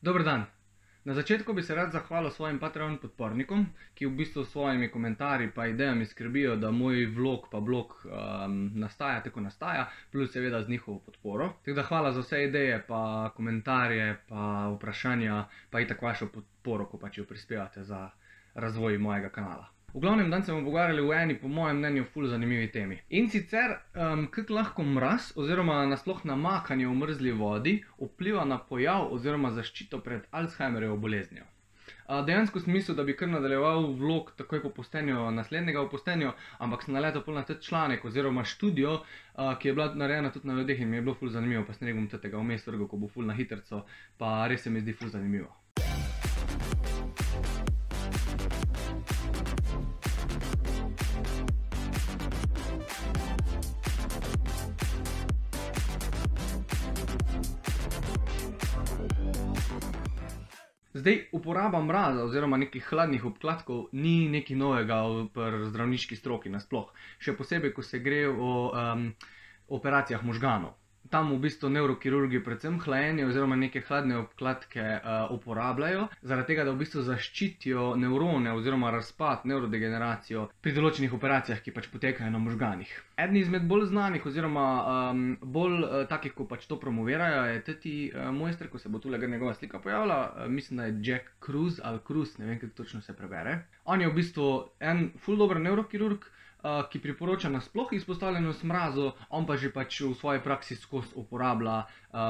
Dober dan. Na začetku bi se rad zahvalil svojim Patreon podpornikom, ki v bistvu s svojimi komentarji pa idejami skrbijo, da moj vlog pa blog nastaja tako nastaja, plus seveda z njihovo podporo. Tako da hvala za vse ideje, pa komentarje, pa vprašanja, pa itak vašo podporo, ko pač jo prispevate za razvoj mojega kanala. V glavnem, dan se bomo pogovarjali v eni, po mojem mnenju, ful zanimivi temi. In sicer, kako lahko mraz oziroma nasploh namakanje v mrzli vodi vpliva na pojav oziroma zaščito pred Alzheimerjevo boleznijo. Dejansko sem mislil, da bi kar nadaljeval vlog takoj po postenju naslednjega v postenju, ampak sem naletel pol na ta članek oziroma študijo, ki je bila narejena tudi na ljudeh in mi je bilo ful zanimivo, pa sem rekel tega vmes vrgel, ko bo ful na hitrco, pa res se mi zdi ful zanimivo. Zdaj, uporaba mraza oziroma nekih hladnih obkladkov ni nekaj novega pri zdravniški stroki nasploh. Še posebej, ko se gre o operacijah možganov. Tam v bistvu nevrokirurgi predvsem hlajenje oziroma neke hladne obkladke uporabljajo, zaradi tega, da v bistvu zaščitijo nevrone oziroma razpad, nevrodegeneracijo pri določenih operacijah, ki pač potekajo na možganih. Eden izmed bolj znanih oziroma bolj takih, ko pač to promovirajo, je teti mojster, ko se bo tule njegova slika pojavila, mislim, da je Jack Kruse ali Kruse, ne vem, kako točno se prebere. On je v bistvu en ful dober nevrokirurg, ki priporoča nasploh izpostavljenost mrazu, on pa že pač v svoji praksi skozi uporablja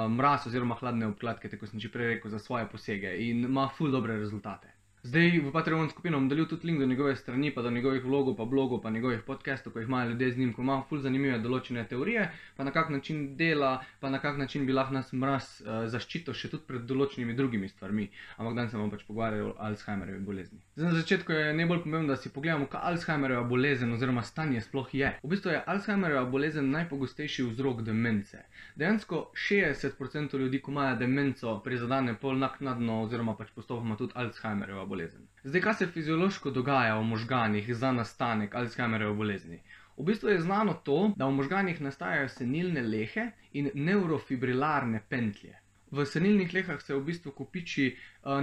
mraz oziroma hladne obkladke, tako sem že prej rekel, za svoje posege in ima ful dobre rezultate. Zdaj v Patreon skupino bom delil tudi link do njegove strani, pa do njegovih vlogov, pa blogov, pa njegovih podcastov, ko jih imajo ljudje z njim, ko ima ful zanimive določene teorije, pa na kak način dela, pa na kak način bi lahko nas mraz zaščitil še tudi pred določenimi drugimi stvarmi. Ampak danes se bomo pač pogovarjali o Alzheimerjevi bolezni. Zdaj na začetku je najbolj pomembno, da si pogledamo, kaj Alzheimerjeva bolezen oziroma stanje sploh je. V bistvu je Alzheimerjeva bolezen najpogostejši vzrok demence. Dejansko 60% ljudi, ko imajo demenco, prizadene pol naknadno oziroma pač postopoma tudi Alzheimerjeva bolezen. Zdaj, kaj se fiziološko dogaja v možganih za nastanek Alzheimerjeve bolezni? V bistvu je znano to, da v možganih nastajajo senilne lehe in neurofibrilarne pentlje. V senilnih lehah se v bistvu kopiči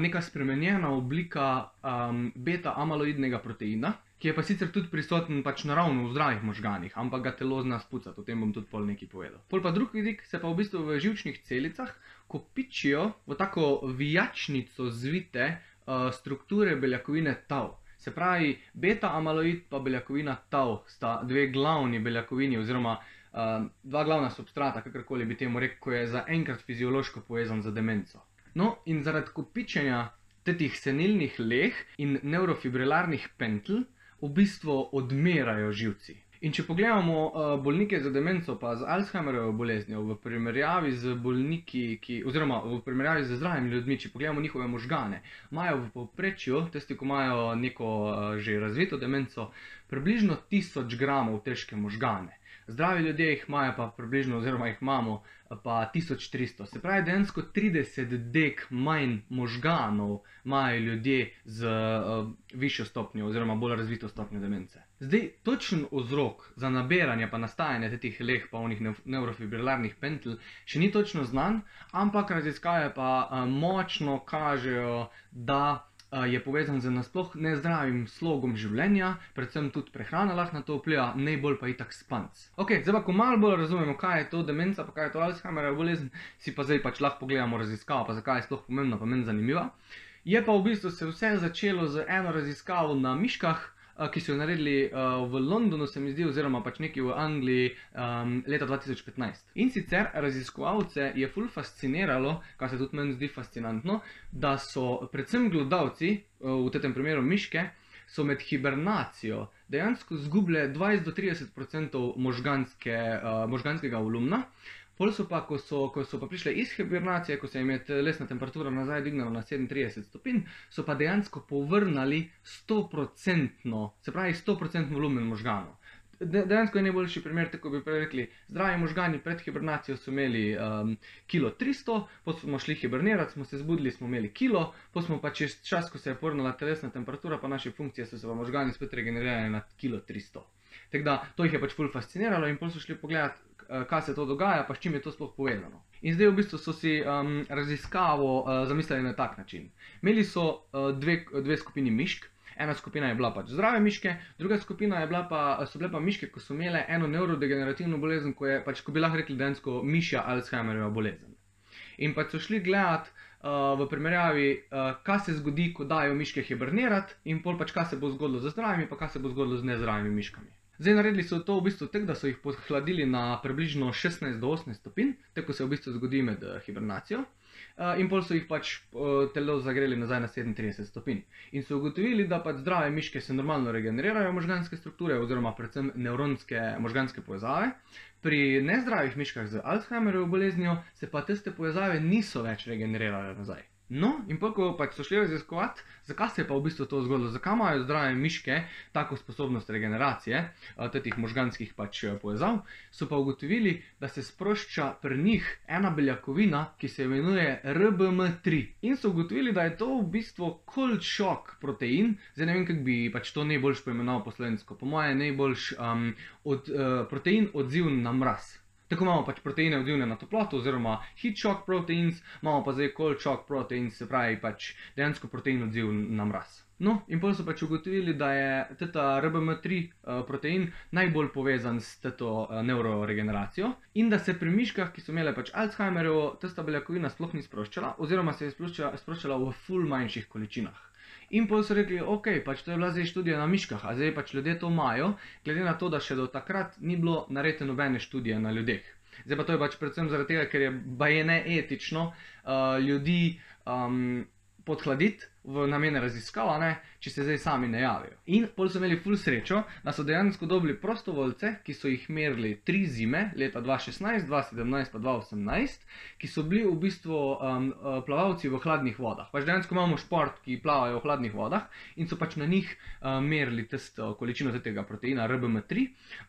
neka spremenjena oblika beta-amaloidnega proteina, ki je pa sicer tudi prisoten pač naravno v zdravih možganih, ampak ga telo zna spucati, o tem bom tudi pol nekaj povedal. Pol pa drug vidik se pa v bistvu v živčnih celicah kopičijo v tako vijačnico zvite strukture beljakovine tau. Se pravi, beta-amaloid pa beljakovina tau sta dve glavni beljakovini oziroma dva glavna substrata, kakorkoli bi temu rekel, ko je zaenkrat fiziološko povezan z demenco. No, in zaradi kopičenja tetih senilnih leh in neurofibrilarnih pentl v bistvu odmerajo živci. In če pogledamo bolnike z demenco pa z Alzheimerjevo boleznijo v primerjavi z bolniki, oziroma v primerjavi z zdravimi ljudmi, če pogledamo njihove možgane, imajo v povprečju, tisti, ko imajo neko že razvito demenco, približno 1000 gramov težke možgane. Zdravi ljudje jih imajo pa približno, oziroma jih imamo pa 1300. Se pravi, dejansko 30 dek manj možganov imajo ljudje z višjo stopnjo oziroma bolj razvito stopnjo demence. Zdaj, točen vzrok za nabiranje pa nastajanje tetih leh pa onih neurofibrilarnih pentl še ni točno znan, ampak raziskave pa močno kažejo, da je povezan z nasploh nezdravim slogom življenja, predvsem tudi prehrana lahko na to vpliva, najbolj pa itak spanc. Ok, zdaj pa, ko malo bolj razumemo, kaj je to demenca, pa kaj je to Alzheimerjeva bolezen, si pa zdaj pač lahko pogledamo raziskavo, pa zakaj je sploh pomembna, pa meni zanimiva. Je pa v bistvu se vse začelo z eno raziskavo na miškah, ki so jo naredili v Londonu, se mi zdi, oziroma pač nekje v Angliji leta 2015. In sicer raziskovalce je ful fasciniralo, kar se tudi meni zdi fascinantno, da so predvsem glodavci, v tem primeru miške, so med hibernacijo dejansko zgubile 20-30% možganskega volumna. Pol so pa, ko so pa prišle iz hibernacije, ko se jim je telesna temperatura nazaj dignala na 37 stopinj, so pa dejansko povrnili 100%, se pravi 100% volumen možganov. Dejansko je najboljši primer, tako bi prej rekli, zdravi možgani pred hibernacijo so imeli kilo 300, potem smo šli hibernirati, smo se zbudili, smo imeli kilo, potem smo pa čez čas, ko se je povrnila telesna temperatura, pa naše funkcije so se pa možgani spet regenerirali na kilo 300. Tako da, to jih je pač ful fasciniralo in potem so šli pogledati, kaj se to dogaja, pa s čim je to sploh povezano. In zdaj v bistvu so si raziskavo zamislili na tak način. Imeli so dve skupini mišk. Ena skupina je bila pač zdrave miške, druga skupina so bile pa miške, ko so imele eno nevrodegenerativno bolezen, ko bi lahko rekli dejansko mišja Alzheimerjeva bolezen. In pač so šli gledati v primerjavi, kaj se zgodi, ko dajo miške hibernirati, in pol pač kaj se bo zgodilo z zdravimi, pa kaj se bo zgodilo z nezdravimi miškami. Zdaj naredili so to v bistvu tako, da so jih podhladili na približno 16 do 18 stopinj, tako se v bistvu zgodi med hibernacijo. In pol so jih pač telo zagreli nazaj na 37 stopinj. In so ugotovili, da pač zdrave miške se normalno regenerirajo možganske strukture oziroma predvsem nevronske možganske povezave. Pri nezdravih miškah z Alzheimerjevo boleznijo se pa tiste povezave niso več regenerirale nazaj. No, in pa ko pač so šli raziskovati, zakaj se je pa v bistvu to zgodilo, zakaj imajo zdrave miške tako sposobnost regeneracije teh možganskih pač povezav, so pa ugotovili, da se sprošča pri njih ena beljakovina, ki se imenuje RBM3. In so ugotovili, da je to v bistvu cold shock protein, zdaj ne vem, kako bi pač to najboljš poimenoval po slovensko, po moje najboljš protein odziven na mraz. Tako imamo pač proteine odzivne na toploto oziroma heat shock proteins, imamo pa zdaj cold shock proteins, se pravi pač dejansko protein odziven na mraz. No, in potem so pač ugotovili, da je teta RBM3 protein najbolj povezan s teto neuroregeneracijo in da se pri miškah, ki so imele pač Alzheimerjevo, testa beljakovina sploh ni sproščala oziroma se je sproščala v ful manjših količinah. In potem so rekli, ok, pač to je bila zdaj študija na miškah, a zdaj pač ljudje to imajo, glede na to, da še do takrat ni bilo narejene nobene študije na ljudeh. Zdaj pa to je pač predvsem zaradi tega, ker je baje neetično ljudi podhladiti v namene raziskav, če se zdaj sami ne javijo. In potem so imeli ful srečo, da so dejansko dobili prostovoljce, ki so jih merili 3 zime, leta 2016, 2017 pa 2018, ki so bili v bistvu plavalci v hladnih vodah. Pač dejansko imamo šport, ki plavajo v hladnih vodah in so pač na njih merili količino tega proteina RBM3.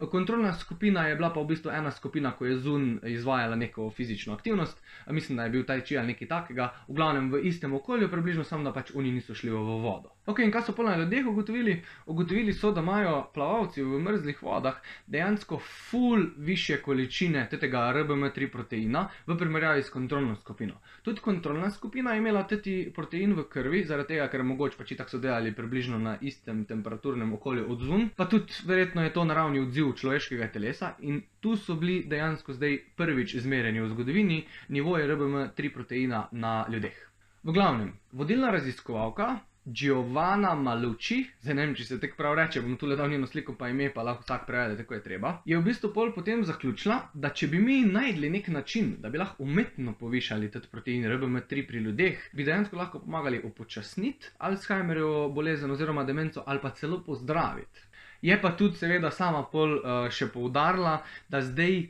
Kontrolna skupina je bila pa v bistvu ena skupina, ko je zunaj izvajala neko fizično aktivnost, mislim, da je bil tai chi ali nekaj takega, v glavnem v istem okolju, približno samo da pač oni niso šli v vodo. Ok, in kaj so pol na ljudeh ugotovili? Ugotovili so, da imajo plavalci v mrzlih vodah dejansko ful više količine tega RBM3 proteina v primerjavi s kontrolno skupino. Tudi kontrolna skupina je imela teti protein v krvi, zaradi tega, ker mogoče pač itak so delali približno na istem temperaturnem okolju odzvon, pa tudi verjetno je to naravni odziv človeškega telesa in tu so bili dejansko zdaj prvič izmerjeni v zgodovini nivoji RBM3 proteina na ljudeh. V glavnem, vodilna raziskovalka Giovanna Malucci, zdaj ne vem, če se tako prav reče, bom tule dal njeno sliko pa ime, pa lahko vsak prevede, tako je treba, je v bistvu pol potem zaključila, da če bi mi najdli nek način, da bi lahko umetno povišali tet protein RBM3 pri ljudeh, bi dejansko lahko pomagali upočasniti Alzheimerjevo bolezen oziroma demenco ali pa celo pozdraviti. Je pa tudi seveda sama pol še poudarila, da zdaj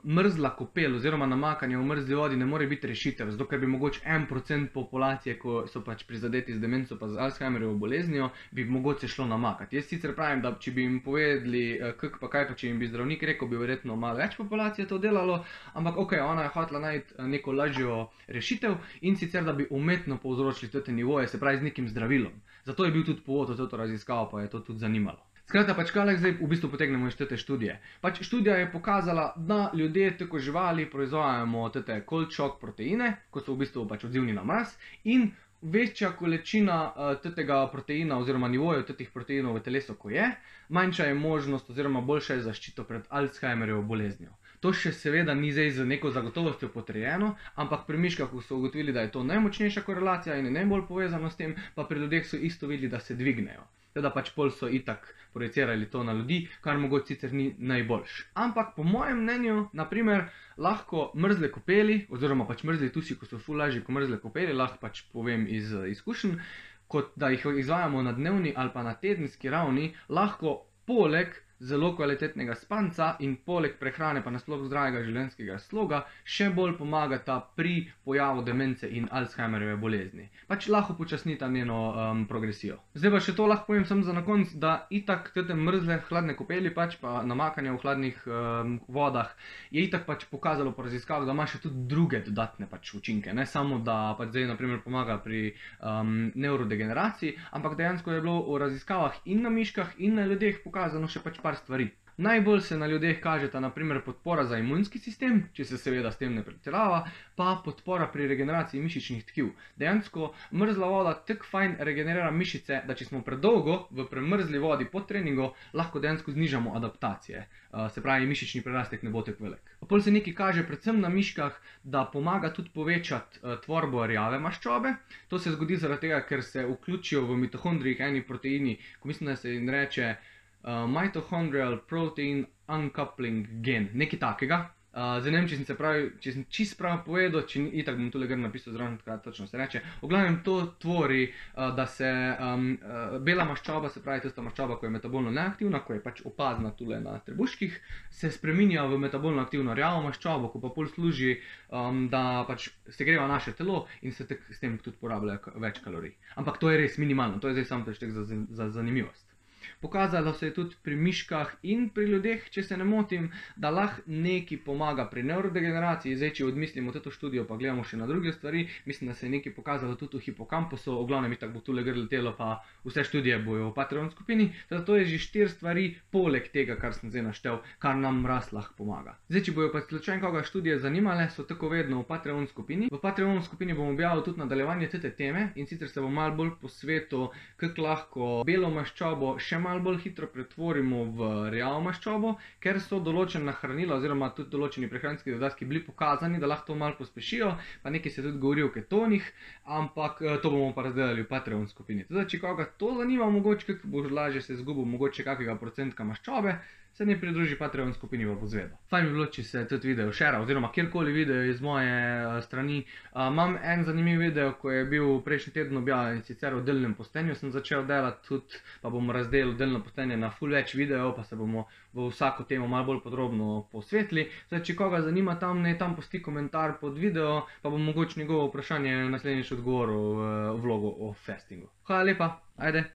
mrzla kopel oziroma namakanje v mrzli vodi ne more biti rešitev, zato ker bi mogoče 1% populacije, ko so pač prizadeti z demenco pa z Alzheimerjevo boleznijo, bi mogoče šlo namakati. Jaz sicer pravim, da če bi jim povedali, kako pa kaj pa če jim bi zdravnik rekel, bi verjetno malo več populacije to delalo, ampak ok, ona je hotela najti neko lažjo rešitev in sicer, da bi umetno povzročili te nivoje, se pravi z nekim zdravilom. Zato je bil tudi povod v to raziskavo, pa je to tudi zanimalo. Skratka, pač kaj zdaj v bistvu potegnemo iz te študije? Pač študija je pokazala, da ljudje tako živali proizvajamo te cold shock proteine, ko so v bistvu pač odzivni na mraz in večja količina tega proteina oziroma nivojev tetih proteinov v telesu, ko je, manjša je možnost oziroma boljša je zaščita pred Alzheimerjevo boleznijo. To še seveda ni zdaj z neko zagotovostjo potrjeno, ampak pri miškah so ugotovili, da je to najmočnejša korelacija in je najbolj povezano s tem, pa pri ljudeh so isto videli, da se dvignejo. Teda pač pol so itak projicirali to na ljudi, kar mogoče sicer ni najboljš. Ampak po mojem mnenju, naprimer, lahko mrzle kopeli, oziroma pač mrzli tusi, ko so ful lažji kot mrzle kopeli, lahko pač povem iz izkušenj, kot da jih izvajamo na dnevni ali pa na tedenski ravni, lahko poleg zelo kvalitetnega spanca in poleg prehrane pa nasploh zdravega življenjskega sloga še bolj pomagata pri pojavu demence in Alzheimerjeve bolezni. Pač lahko počasnita njeno progresijo. Zdaj pa še to lahko povem samo za na konec, da itak te mrzle hladne kopeli pač pa namakanje v hladnih vodah je itak pač pokazalo po raziskavah, da ima še tudi druge dodatne pač učinke. Ne samo, da pač zdaj naprimer pomaga pri neurodegeneraciji, ampak dejansko je bilo v raziskavah in na miškah in na ljudeh pokazano še pač par stvari. Najbolj se na ljudeh kažeta naprimer podpora za imunski sistem, če se seveda s tem ne pretirava, pa podpora pri regeneraciji mišičnih tkiv. Dejansko mrzla voda tako fajn regenerira mišice, da če smo predolgo v premrzli vodi po treningu, lahko dejansko znižamo adaptacije. Se pravi, mišični prerastek ne bo tako velik. Pol se nekaj kaže predvsem na miškah, da pomaga tudi povečati tvorbo rjave maščobe. To se zgodi zaradi tega, ker se vključijo v mitohondrijih eni proteini, ko mislim, da se jim reče mitochondrial protein uncoupling gen, nekaj takega. Zdaj ne vem, če sem čist prav povedal, če itak bom tule gor napisal zraven, kaj točno se reče. V glavnem to tvori, da se bela maščoba, se pravi tista maščoba, ko je metabolno neaktivna, ko je pač opazna tule na trebuških, se spreminja v metabolno aktivno rjavo maščobo, ko pa pol služi, da pač segreva naše telo in se s tem tudi porablja več kalorij. Ampak to je res minimalno, to je zdaj samo preštek za zanimivost. Pokazalo se je tudi pri miškah in pri ljudeh, če se ne motim, da lahko nekaj pomaga pri nevrodegeneraciji. Zdaj, če odmislimo to študijo, pa gledamo še na druge stvari, mislim, da se je nekaj pokazalo tudi v hipokampusu, v glavnem itak bo tule gor letelo, pa vse študije bojo v Patreon skupini. Teda to je že 4 stvari poleg tega, kar sem zdaj naštel, kar nam rast lahko pomaga. Zdaj, če bojo pa slučajno koga študije zanimale, so tako vedno v Patreon skupini. V Patreon skupini bom objavil tudi nadaljevanje te teme in sicer se bom malo bolj posvetil, kako lahko belo maščobo še malo bolj hitro pretvorimo v rjavo maščobo, ker so določena hranila oziroma tudi določeni prehranski dodatki bili pokazani, da lahko to malo pospešijo, pa nekaj se tudi govori o ketonih, ampak to bomo pa razdelali v Patreon skupini. Teda, če koga to zanima, mogoče kako bo lažje se zgubil mogoče kakega procentka maščobe, se ne pridruži Patreon skupini, pa bo zvedel. Fajn bi bilo, če se tudi video share, oziroma kjerkoli video iz moje strani. Imam en zanimiv video, ko je bil prejšnji teden objavljen, sicer v delnem postenju sem začel delati tudi, pa bomo razdelili delno postenje na ful več videov, pa se bomo v vsako temo malo bolj podrobno posvetili. Zdaj, če koga zanima tam, naj tam pusti komentar pod video, pa bom mogoče njegovo vprašanje naslednjič odgovoril v vlogu o fastingu. Hvala lepa, ajde!